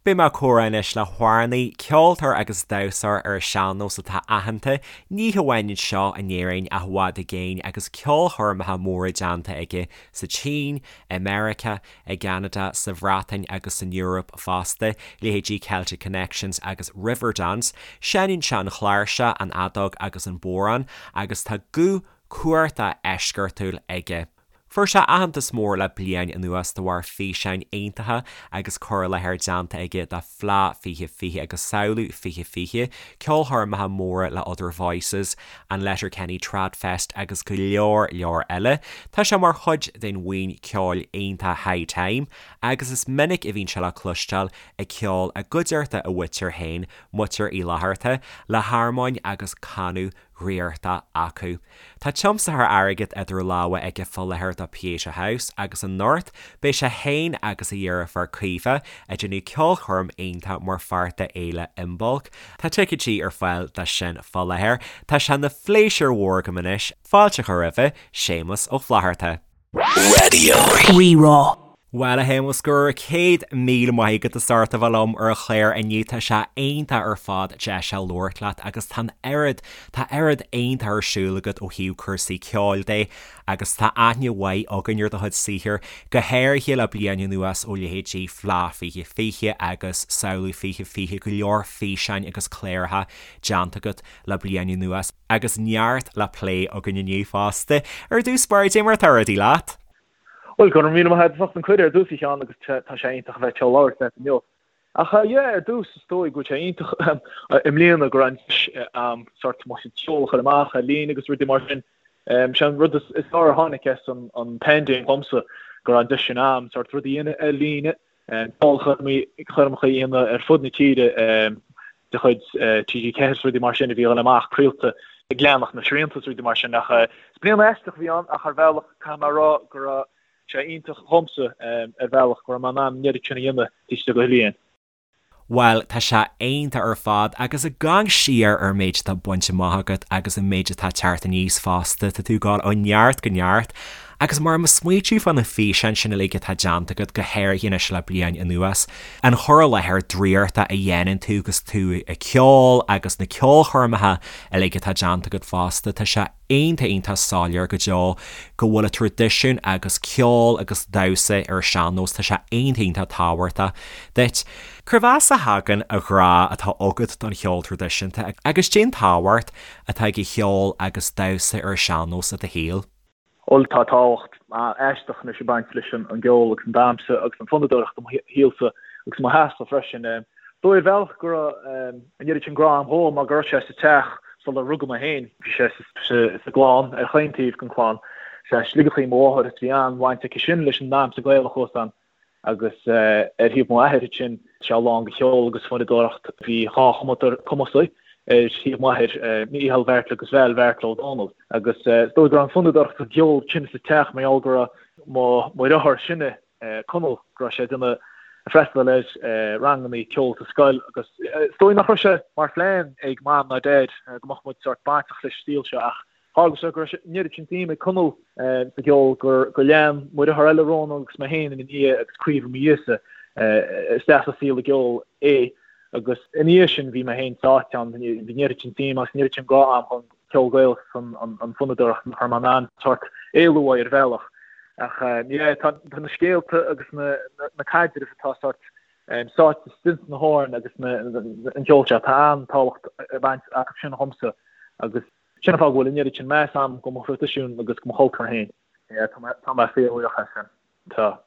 Beidh mé ag comhrá anois le hamhránaí, ceoltóir agus damhsóir ar an sean-nós atá aitheanta, ní hamháin anseo in Éirinn ach i bhfad i gcéin agus ceolchoirmeacha móra déanta aige sa tSín, i Meiriceá, i gCeanada, sa Bhreatain agus san Eoraip fosta, leithéidí Celtic Connections agus Riverdance. Seinneann sé an chláirseach, an fheadóg agus an bodhrán agus tá guth cumhachtach eisceachtúil aige. Fuair sé aitheantas mór le bliain anuas de bharr físeáin iontacha agus cur i láthair déanta aige do Fleadh 2020 agus Samhlú 2020, ceolchoirmeacha móra le Other Voices, an Letterkenny Tradfest agus go leor leor eile. Tá sé mar chuid den bhuíon ceoil iontach High Time agus is minic a bhíonn sé le cloisteáil ag ceol i gcuideachta a mhuintir féin, Muintir Uí Fhlatharta, le harmóin agus canadh dhraíochta acu. Tá tiomsaitheoir airgid idir lámha aige fá láthair do Pieta House agus anocht beidh sé féin agus a dheirfiúr Caoimhe ag déanamh ceolchoirm iontach mar pháirt de Fhéile Imbolc. Tá ticéidí ar fáil dó sin fá láthair. Tá sé ina phléisiúr mhór agam anois fáilte a chur roimhe, Séamus Ó Flatharta. Raidió Rí-Rá. Bhuel, a Shéamuis, go raibh 100,000 maith agat as ucht a bheith liom ar an chlár inniu. Tá sé iontach ar fad deis a labhairt leat agus tá an oiread, tá oiread iontach ar siúl agat ó thaobh cúrsaí ceoil de agus tá aithne mhaith againn ar do chuid saothair, go háirithe le bliain anuas ó leithéidí Fleadh 2020 agus Samhlú 2020, go leor físeáin agus cláracha déanta agat le bliain anuas agus neart le plé againn inniu fosta. Ar dtús báire, cad é mar atá rudaí leat? Bhuel, go raibh míle maith agat as ucht an cuireadh ar dtús, a Sheáin, agus tá sé iontach a bheith anseo ag labhairt leat inniu. Ach yeah, ar dtús, is dóigh go bhfuil sé iontach i mbliana go raibh an deis a'm sort mo chuid ceoil a chur amach ar líne agus rudaí mar sin. Sé an rud is fearr a tháinig as an paindéim dhomsa, go raibh an deis sin a'm sort rudaí a dhéanamh ar líne, ceolchoirmeacha a dhéanamh ar fud na tíre de chuid TG4 is rudaí mar sin a bhí ag dul amach craolta ag leanacht na srianta is rudaí mar sin ach is bliain aisteach a bhí ann ach ar bhealach caithfidh mé a rá go raibh sé iontach dhomsa ar bhealach go raibh mé in ann an oiread sin a dhéanamh taobh istigh de bhliain. Bhuel, tá sé iontach ar fad agus ag amharc siar ar an méid atá bainte amach agat agus an méid atá ag teacht aníos fosta, tá tú ag dul ó neart go neart agus mar mo smaoitiú fá na físeáin sin uilig atá déanta agat, go háirithe anois le bliain anuas, an cur i láthair draíochta a dhéanann tú agus tú ag ceol agus na ceolchoirmeacha uilig atá déanta agat fosta, tá sé iontach iontach soiléir go deo go bhfuil an traidisiún agus ceol agus damhsa ar an sean-nós, tá sé iontach iontach tábhachtach duit. Cérbh as a thagann an grá atá agat don cheol traidisiúnta agus cén tábhacht atá ag an cheol agus damhsa ar an sean-nós i do shaol? Bhuel, tá tábhacht aisteach anois ag baint leis an gceol agus an damhsa agus an fonnadóireacht i mo shaolsa agus i mo theachsa freisin. Dóigh ar bhealach go raibh an oiread sin grá agam dhó mar go raibh sé sa teach sular rugadh mé féin. Bhí sé sa gclann, ar chaon taobh den chlann. Sé Sligeach í mo mháthair is bhí an-bhaint aici sin leis an ndamhsa Gaelach thuas ann. Agus ar thaobh mo athair ansin, sé lán de cheol agus fonnadóireacht. Bhí dhá chumadóir cumasaigh ar thaobh m'athair, Mícheál Bheairtle agus Val Bheairtle Ó Dónaill. Agus is dóigh go raibh an fonnadóireacht agus an ceol sin sa teach mar gheall go raibh mo dheartháir is sine, Conall, go raibh sé ag déanamh ag freastal ar ranganna ceoil sa scoil agus is dóigh nach raibh sé mar phlean ag Mam ná Dad go mbeadh muid sórt bainteach leis an saol seo ach Tharla sé go raibh an oiread sin suim ag Conall sa gceol gur lean mo dheartháir eile Rónán agus mé féin ina dhiaidh agus Caoimhe i mo dhiaidhsa isteach sa saol an gceoil é agus ina dhiaidh sin bhí mé féin sáite ann, bhí an oiread sin suim agus an oiread sin grá agam don cheol Gaelach agus an fonnadóireacht nach raibh mé in ann sórt éalú uaidh ar bhealach. Ach yeah, tá na scéalta agus na caidrimh atá sórt sáite istigh sna hamhráin agus an ceol seo, tá an-tábhacht ag baint acu sin dhomsa agus Sin an fáth go bhfuil an oiread sin meas agam do mo thraidisiún agus do mo chultúr féin. Yeah, tá mé, tá mé fíorbhuíoch as sin. Tá.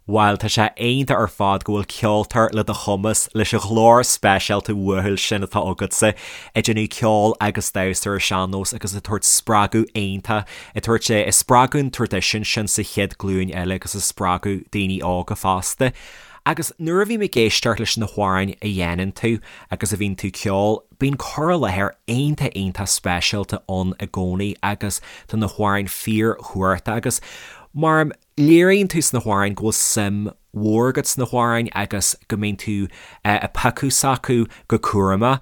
Bhuel, tá sé iontach ar fad go bhfuil ceoltóir le do chumas, leis an ghlór speisialta uathúil sin atá agatsa, ag déanamh ceol agus damhsa ar an sean-nós agus ag tabhairt spreagadh iontach, ag tabhairt, ag spreagadh an traidisiúin sin sa chéad ghlúin eile agus ag spreagadh daoine óga fosta. Agus nuair a bhím ag éisteacht leis na hamhráin a dhéanann tú agus a bhíonn tú ag ceol, Bíonn cur i láthair iontach iontach speisialta ann i gcónaí agus tá na hamhráin fíorchumhachtach agus mar léiríonn tú sna hamhráin go bhfuil suim mhór agat sna hamhráin agus go mbíonn tú ag piocadh s'acu go cúramach.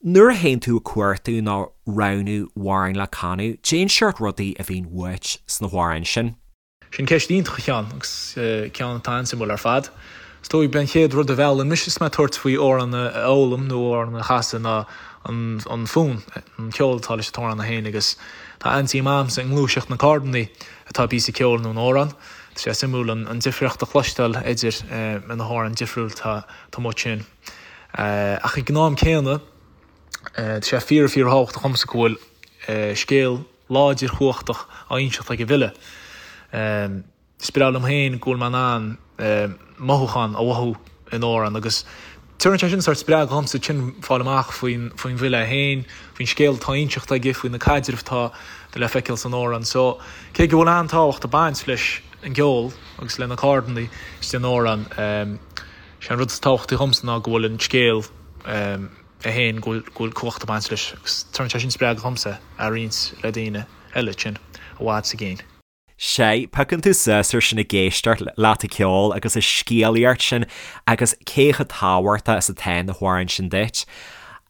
Nuair a théann tú ag cuartú nó roghnú amhráin le canadh, cén seort rudaí a bhíonn uait sna hamhráin sin. Sin ceist iontach a Sheáin, agus ceann atá an-suimiúil ar fad. Is dóigh b'é an chéad rud a mheallann mise is mé ag tabhairt faoi amhrán a fhoghlaim nó amhrán a chasadh ná an fonn, an ceol atá leis an t-amhrán é féin agus tá an-suim a'msa i ngluaiseacht na gcordannaí atá i bpíosa ceoil nó in amhrán. Tá sé suimiúil an difríocht a chloisteáil idir na hamhráin difriúil atá amuigh ansin. Ach ag an am céanna tá sé fíor fíor thábhachtach dhomsa go bhfuil scéal láidir chumhachtach á inseacht ag an bhfile. Is breá liom féin go bhfuil mé in ann mothúchán a mhothú in amhrán agus tabharann sé sin sórt spreagadh dhomsa ansin fáil amach faoin faoin bhfile é féin, faoin scéal atá á inseacht aige, faoi na caidrimh atá le feiceáil san amhrán. So, cé go bhfuil an-tábhacht ag baint leis an gceol agus le na cordannaí istigh in amhrán, sé an rud is tábhachtaí dhomsa ná go bhfuil an scéal é féin, go bhfuil cumhacht ag baint leis agus tabharann sé sin spreagadh dhomsa a roinnt le daoine eile ansin i bhfad is i gcéin. Sea, piocann tú suas ar sin ag éisteacht leat ag ceol agus an scéalaíocht sin agus cé chomh tábhachtach is atá na hamhráin sin duit.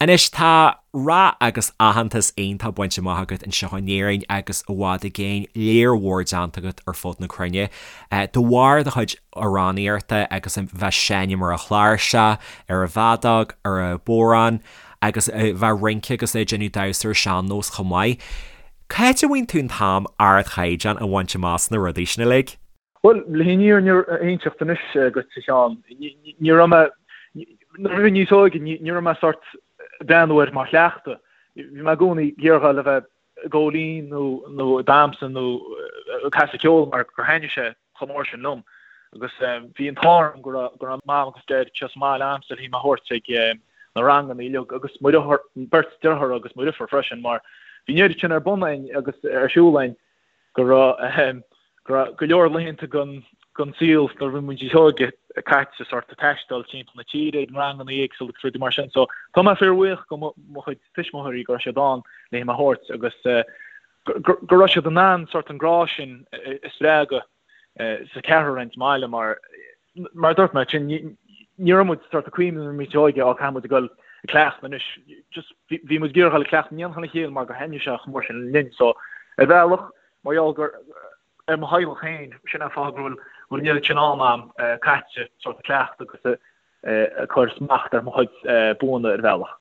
Anois, tá rath agus aitheantas iontach bainte amach agat anseo in Éirinn agus i bhfad i gcéin, lear mhór déanta agat ar fud na cruinne de bharr do chuid amhránaíochta agus a bheith ag seinm ar an chláirseach, ar an bhfeadóg, ar an bhodhrán agus a bheith ag rince agus ag déanamh damhsa ar sean-nós chomh maith. Cá háit a bhfaigheann tú an t-am ardchaighdeán a bhaint amach sna rudaí sin uilig? Bhuel, le an fhírinne a inseacht anois dhuit, a Sheáin, ní raibh mé, nuair a bhí mé níos óige, ní raibh mé sórt ag breathnú air mar chleachtadh. Bhí mé i gcónaí ag iarraidh a bheith ag veidhlín nó nó ag damhsa nó ag casadh ceoil mar gur thaitnigh sé chomh mór sin liom. Agus bhí an t-ádh orm go raibh go raibh Mam agus Deaid anseo sa mbaile a'msa le mé a thabhairt ag na ranganna uilig agus mo dheartháir, beirt deartháir agus mo dheirfiúr freisin mar bhí an oiread sin ar bun a'inn agus ar siúl a'inn go raibh go raibh go leor laethanta den den saol nuair a bhí muid níos óige caite sort ag taisteal timpeall na tíre ag na ranganna éagsúla agus rudaí mar sin. So tá mé fíorbhuíoch go mo chuid tuismitheoirí go raibh siad ann le mé a thabhairt agus go raibh siad in ann sort an grá sin a spreagadh sa cheathrar againn sa mbaile mar mar a dúirt mé sin ní raibh muid sort ag cuimhneamh nuair a bhí muid óige á caithfidh muid a dhul ag cleachtadh anois just bhí muid ag iarraidh dhul ag cleachtadh in éineacht lena chéile mar gur thaitnigh sé chomh mór sin linn so ar bhealach mar gheall gur ar mo theaghlach féin sin an fáth go bhfuil bhfuil an oiread sin am a'm caite sort ag cleachtadh agus ag cur smacht ar mo chuid buanna ar bhealach.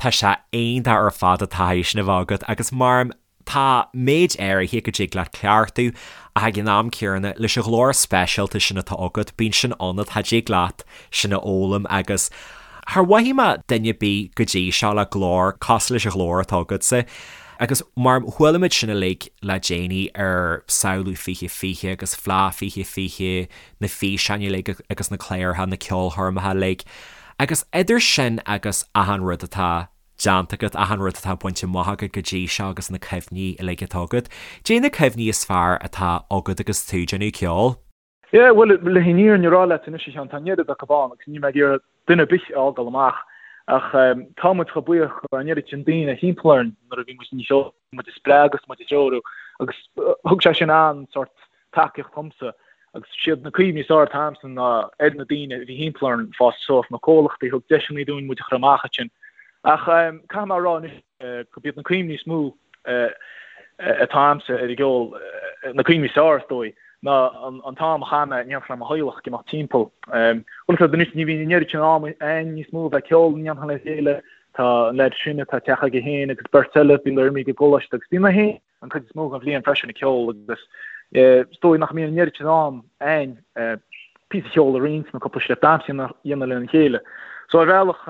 Tá sé iontach ar fad an taithí sin a bheith agat agus mar tá méid áirithe go dtig leat cleachtadh ach ag an am céanna leis an ghlór speisialta sin atá agat bíonn sin ionat, cha dtig leat sin a fhoghlaim agus char mhothaigh mé duine ar bith go dtí seo le glór cosúil leis an ghlór atá agatsa agus mar chuala muid sin uilig le déanaí ar Samhlú 2020 agus Fleadh 2020, na físeáin uilig agus na cláracha, na ceolchoirmeacha uilig. Agus idir sin agus achan rud atá déanta agat, achan rud atá bainte amach agat go dtí seo agus na cuimhní uilig atá agat, caidé na cuimhní is fearr atá agat agus tú ag déanamh ceoil? Yeah, bhuel, le an fhírinne a rá leat anois, a Sheáin, tá an oiread acu ann agus níl mé ag iarraidh duine ar bith a fhágáil amach ach tá muid chomh buíoch go raibh an oiread sin daoine thimpeall orainn nuair a bhí muid níos óige. muid a spreagadh is muid a threorú agus thug sé sin an-sórt tacaíocht dhomsa agus siad na cuimhní is fearr atá a'msa ná ar na daoine a bhí thimpeall orainn fás suas, na comhlachtaí a thug deiseanna dúinn muid a chur amach ansin. Ach caithfidh mé a rá anois gurb iad na cuimhní is mó atá a'msa ar an gceol, na cuimhní is fearr is dóigh, ná an t-am a chaith mé in éineacht le mo theaghlach ag imeacht timpeall. Bhuel, anois ní bhíonn an oiread sin am a'inn níos mó a bheith ag ceol in éineacht le chéile, Tá an leaid is sine, tá teach aige féin agus beirt eile, bíonn imithe ag an gcoláiste agus bíonn mé féin an chuid is mó den bhliain freisin ag ceol agus is dóigh nach mbíonn an oiread sin am a'inn píosa ceoil a roinnt nó cúpla steip damhsa a dhéanamh lena chéile. So ar bhealach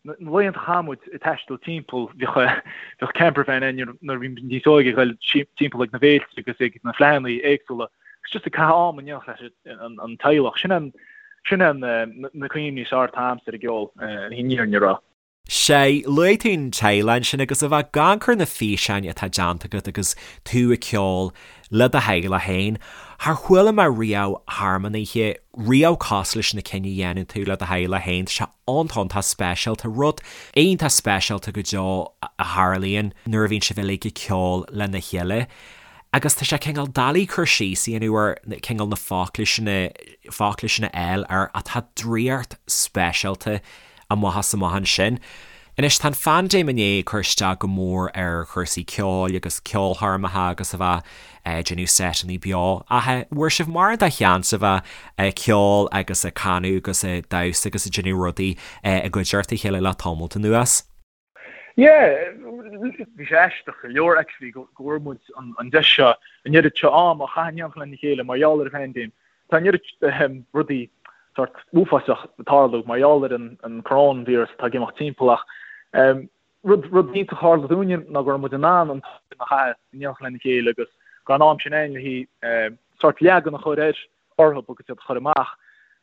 na laethanta a chaith muid ag taisteal timpeall, bheadh bheadh camper van a'inn nuair a bhí muid níos óige ag dul timpeall ag na bhféilte agus ag na fleadhanna éagsúla agus just ag caitheamh am in éineacht leis an teaghlach. Sin an Sin é na cuimhní is fearr atá a'msa ar an gceol, an fhírinne a rá. Sea, luaigh tú an teaghlach ansin agus a bheith ag amharc ar na físeáin atá déanta agat agus tú ag ceol le do theaghlach féin, char chuala mé riamh harmónaithe riamh cosúil leis na cinn a dhéanann tú le do theaghlach féin. Tá sé iontach iontach speisialta, rud iontach speisialta go deo a tharlaíonn nuair a bhíonn sibh uilig ag ceol lena chéile. Agus tá sé cineál doiligh cur síos a dhéanamh ar cineál na focla sin a, focla sin a fháil air ach tá draíocht speisialta amach is amach ansin. Anois tá an phaindéim i ndiaidh cur isteach go mór ar chúrsaí ceoil agus ceolchoirmeacha agus a bheith ag déanamh seiteanna beo. Ach an bhfuair sibh mórán de sheans a bheith ag ceol agus ag canadh agus ag damhsa agus ag déanamh rudaí i gcuideachta a chéile le tamalt anuas? Yeah, bhí sé aisteach go leor actually go bhfuair muid an deis seo, an oiread seo am a chaitheamh in éineacht lena chéile mar gheall ar an phaindéim. Tá an oiread rudaí sórt uafásach ag tarlú mar gheall ar an coróinvíreas atá ag imeacht timpeall ach rud rud iontach a tharla dúinne ná go raibh muid in ann an t-am a chaitheamh in éineacht lena chéile agus go raibh an am sin againn le haghaidh sórt leagan a chur ar orthu agus iad a chur amach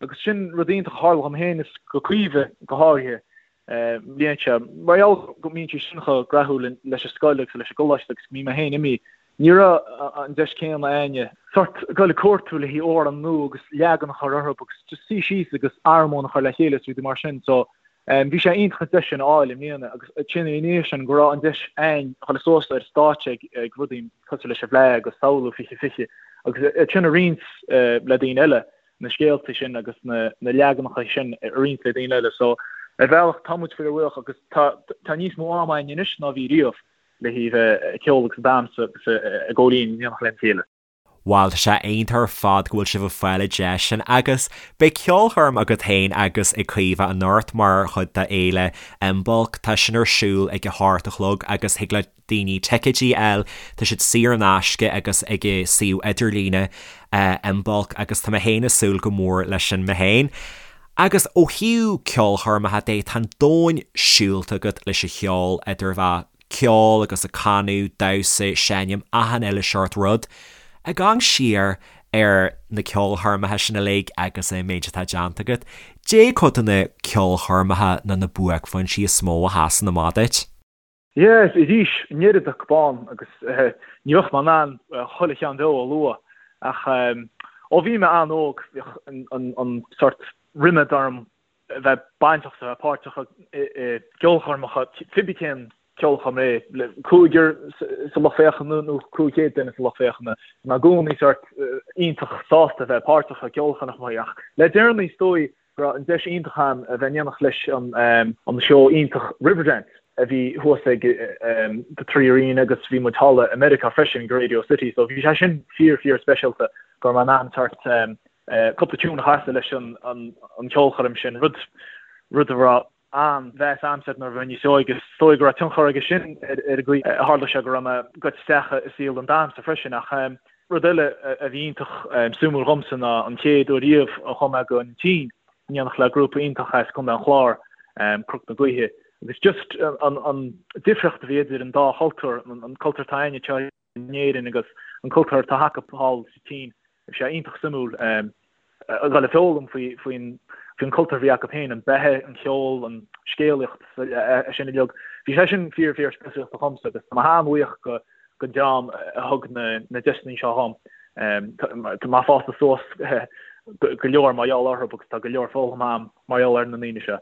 agus sin rud iontach a tharla dhom féin is go Caoimhe go háirithe i mbliana seo. Mar gheall go mbíonn sí sin chomh graitheach leis an scoil agus leis an gcoláiste agus go mbím mé féin imithe, ní raibh an deis céanna a'inne sórt dul ag cuartú le haghaidh amhrán nua agus leagan a chur orthu agus just suí síos agus armóin a chur le chéile is rudaí mar sin. So bhí sé iontach an deis sin a fháil i mbliana agus ansin ina dhiaidh sin go raibh an deis a'inn a dhul suas ar stáitse ag rudaí cosúil leis an bhFleadh agus Samhlú 2020 agus iad sin a roinnt le daoine eile. na scéalta sin agus na leaganacha sin a roinnt le daoine eile. So, ar bhealach, tá muid fíorbhuíoch agus tá tá níos mó am againn anois ná bhí riamh le haghaidh bheith ag ceol agus ag damhsa agus ag ól in éineacht lena chéile. Bhuel, tá sé iontach ar fad go bhfuil sibh ag fáil an deis sin agus beidh ceolchoirm agat féin agus ag Caoimhe anocht mar chuid de Fhéile Imbolc. Tá sin ar siúl ag a hocht a chlog agus thig le daoine ticéidí a fháil, tá siad saor in aisce agus ag an suíomh idirlíne Imbolc agus tá mé féin ag súil go mór leis sin mé féin. Agus ó thaobh ceolchoirmeacha de, tá an domhan siúlta agat leis an cheol, idir bheith ceol agus ag canadh, damhsa, seinm, achan uile seort rud. Ag amharc siar ar na ceolchoirmeacha sin uilig agus an méid atá déanta agat, caidé cuid de na ceolchoirmeacha nó na buaicphointí is mó a sheasann amach duit? Yes, arís, an oiread acu ann agus ní bheadh mé in ann chuile cheann deo a lua ach ó bhí mé an-óg bhíodh an sort ríméad orm a bheith bainteach a bheith páirteach i gceolchoirmeacha, cibé cén ceolchoirm é, le cúigear sa lucht féachana nó 500 duine sa lucht féachana, bhí mé i gcónaí sort iontach sásta a bheith páirteach i gceolchoirmeacha ach le deireanaí is dóigh go raibh an deis iontach agam a bheith in éineacht leis an seó iontach Riverdance a bhí thuas ag The Three Arena agus bhí muid thall i Meiriceá freisin ag Radio City so bhí sé sin fíor fíor speisialta go raibh mé in ann sort cúpla tune a chasadh leis an cheolchoirm sin, rud rud a raibh an-mheas a'msa air nuair a bhí mé níos óige. Is dóigh go raibh tionchar aige sin ar an gcaoi a tharla sé go raibh mé gaibhte isteach i saol an damhsa freisin ach rud eile a bhí iontach suimiúil dhomsa ná an chéad uair riamh a chuaigh mé go an tSín in éineacht le grúpa iontach as Contae an Chláir, Cnoc na Gaoithe, agus just an difríocht a bhí idir an dá chultúr, an cultúr atá againne anseo in Éirinn agus an cultúr atá acu thall sa tSín. Bhí sé iontach suimiúil a dhul ag foghlaim faoin faoin cultúr a bhí acu féin, an beatha, an ceol, an scéalaíocht, é sin uilig. Bhí sé sin fíor fíor speisialta dhomsa agus tá mé an-bhuíoch go don dream a thug na na deiseanna seo dhom. Tá mé fásta suas go leor mar gheall orthu agus tá go leor foghlamtha a'm mar gheall ar na ndaoine seo.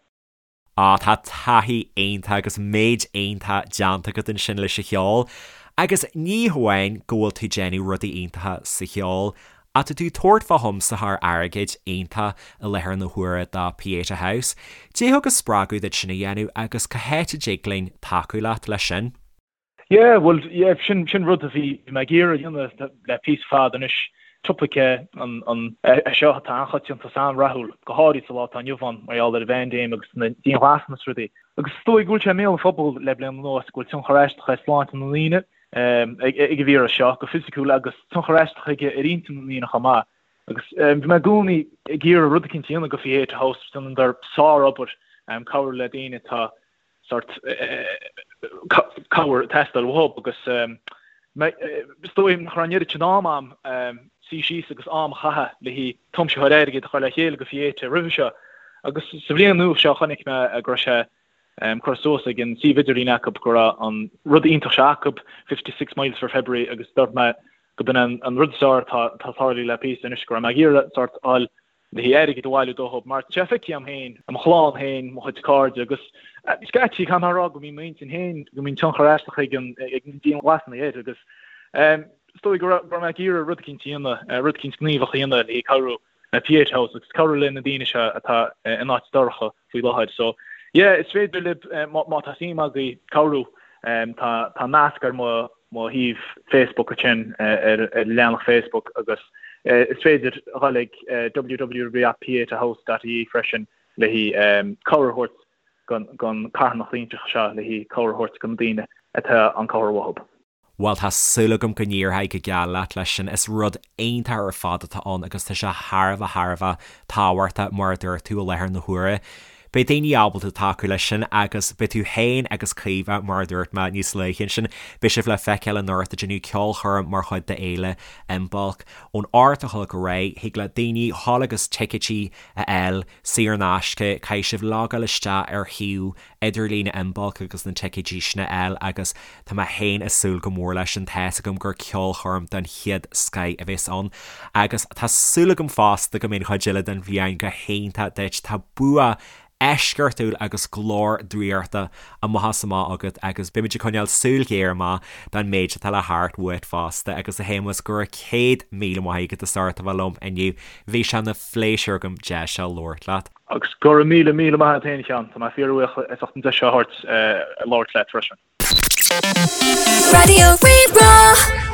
Á, tá taithí iontach agus méid iontach déanta agat ansin leis an cheol. Agus ní hamháin go bhfuil tú ag déanamh rudaí iontacha sa cheol, ach tá tú ag tabhairt fá thiomsaitheoir airgid iontach i láthair na huaire do Pieta House. Caidé a thug an spreagadh duit sin a dhéanamh agus cá háit a dtig linn tacú leat leis sin? Yeah, bhuel, yeah, sin, sin rud a bhí mé ag iarraidh a dhéanamh le píosa fada anois. Topaic é an, an, é seo atá an-choitianta is an-rathúil, go háirid sa lá atá inniu ann, mar gheall ar an bpaindéim agus na dianghlasanna is rudaí. Agus is dóigh go bhfuil sé i mbéal an phobail le bliain anuas go bhfuil tionchar aisteach ar shláinte na ndaoine ag an víreas seo, go fisiciúil, agus tionchar aisteach aige ar intinn na ndaoine chomh maith. Agus bhí mé i gcónaí ag iarraidh rud eicínt a dhéanamh go Pieta House, déanadar sár-obair, cabhrú le daoine atá sort cabhair ag teastáil uathu agus is dóigh nach raibh an oiread sin am a'm suí síos agus am a chaitheamh le haghaidh tiomsaitheoir airgid a chur le chéile go Pieta roimhe seo. Agus sa bhliain nua seo chonaic mé go raibh sé curtha suas ag an suíomh idirlín acu go raibh an rud iontach seo acu, 56 Miles for February agus dúirt mé go b'in an rud is fearr atá tarlaithe le píosa anois go raibh mé ag iarraidh sort fháil le haghaidh airgead a bhailiú dóthub, mar tá sé feicthe a'm féin, i mo chlann féin, mo chuid cairde, agus scaití, caithfidh mé a rá go mbíonn m'intinn féin, go mbíonn tionchar aisteach ag an ag na dianghlasanna air, agus is dóigh go raibh mé ag iarraidh rud eicínt a dhéanamh, rud eicínt gníomhach a dhéanamh le haghaidh cabhrú le Pieta House agus cabhrú le na daoine seo atá in áit dorcha faoi láthair. So, Yeah, is féidir libh, má tá suim agaibh cabhrú, tá nasc ar mo mo shuíomh Facebook ansin ar leathanach Facebook agus is féidir a dhul ag www.pietahouse.ie freisin le haghaidh cabhair a thabhairt don carthanacht iontach seo le haghaidh cabhair a thabhairt do na daoine atá an cabhair uathu. Bhuel, tá súil agam go n-éireoidh go geal leat leis sin. Is rud iontach ar fad atá ann agus tá sé thar a bheith thar a bheith tábhachtach, mar a dúirt tú, i láthair na huaire. Beidh daoine ábalta tacú leis sin agus beidh tú féin agus Caoimhe, mar a dúirt mé níos luaithe ansin, beidh sibh le feiceáil anocht ag déanamh ceolchoirm mar chuid d'Fhéile Imbolc. Ón 8 a chlog ar aghaidh, thig le daoine dhul agus ticéidí a fháil saor in aisce, caithfidh sibh logáil isteach ar shuíomh idirlín Imbolc agus na ticéidí sin a fháil agus tá mé féin ag súil go mór leis sin, tá's agam gur ceolchoirm den chéad scoith a bheas ann agus tá súil agam fosta go mbeidh an chuid eile den bhliain go hiontach duit, tá bua eisceachtúil agus glór draíochta amach is amach agat agus beimid ag coinneáil súil ghéar amach don méid atá le theacht uait fosta agus a Shéamuis go raibh 100,000 maith agat as ucht a bheith liom inniu, bhí sé ina phléisiúr agam deis seo labhairt leat. Agus go raibh míle, míle maith agat féin, a Sheáin. Tá mé fíorbhuíoch as ucht an deis seo a thabhairt labhairt leat freisin. Raidió Rí-Rá.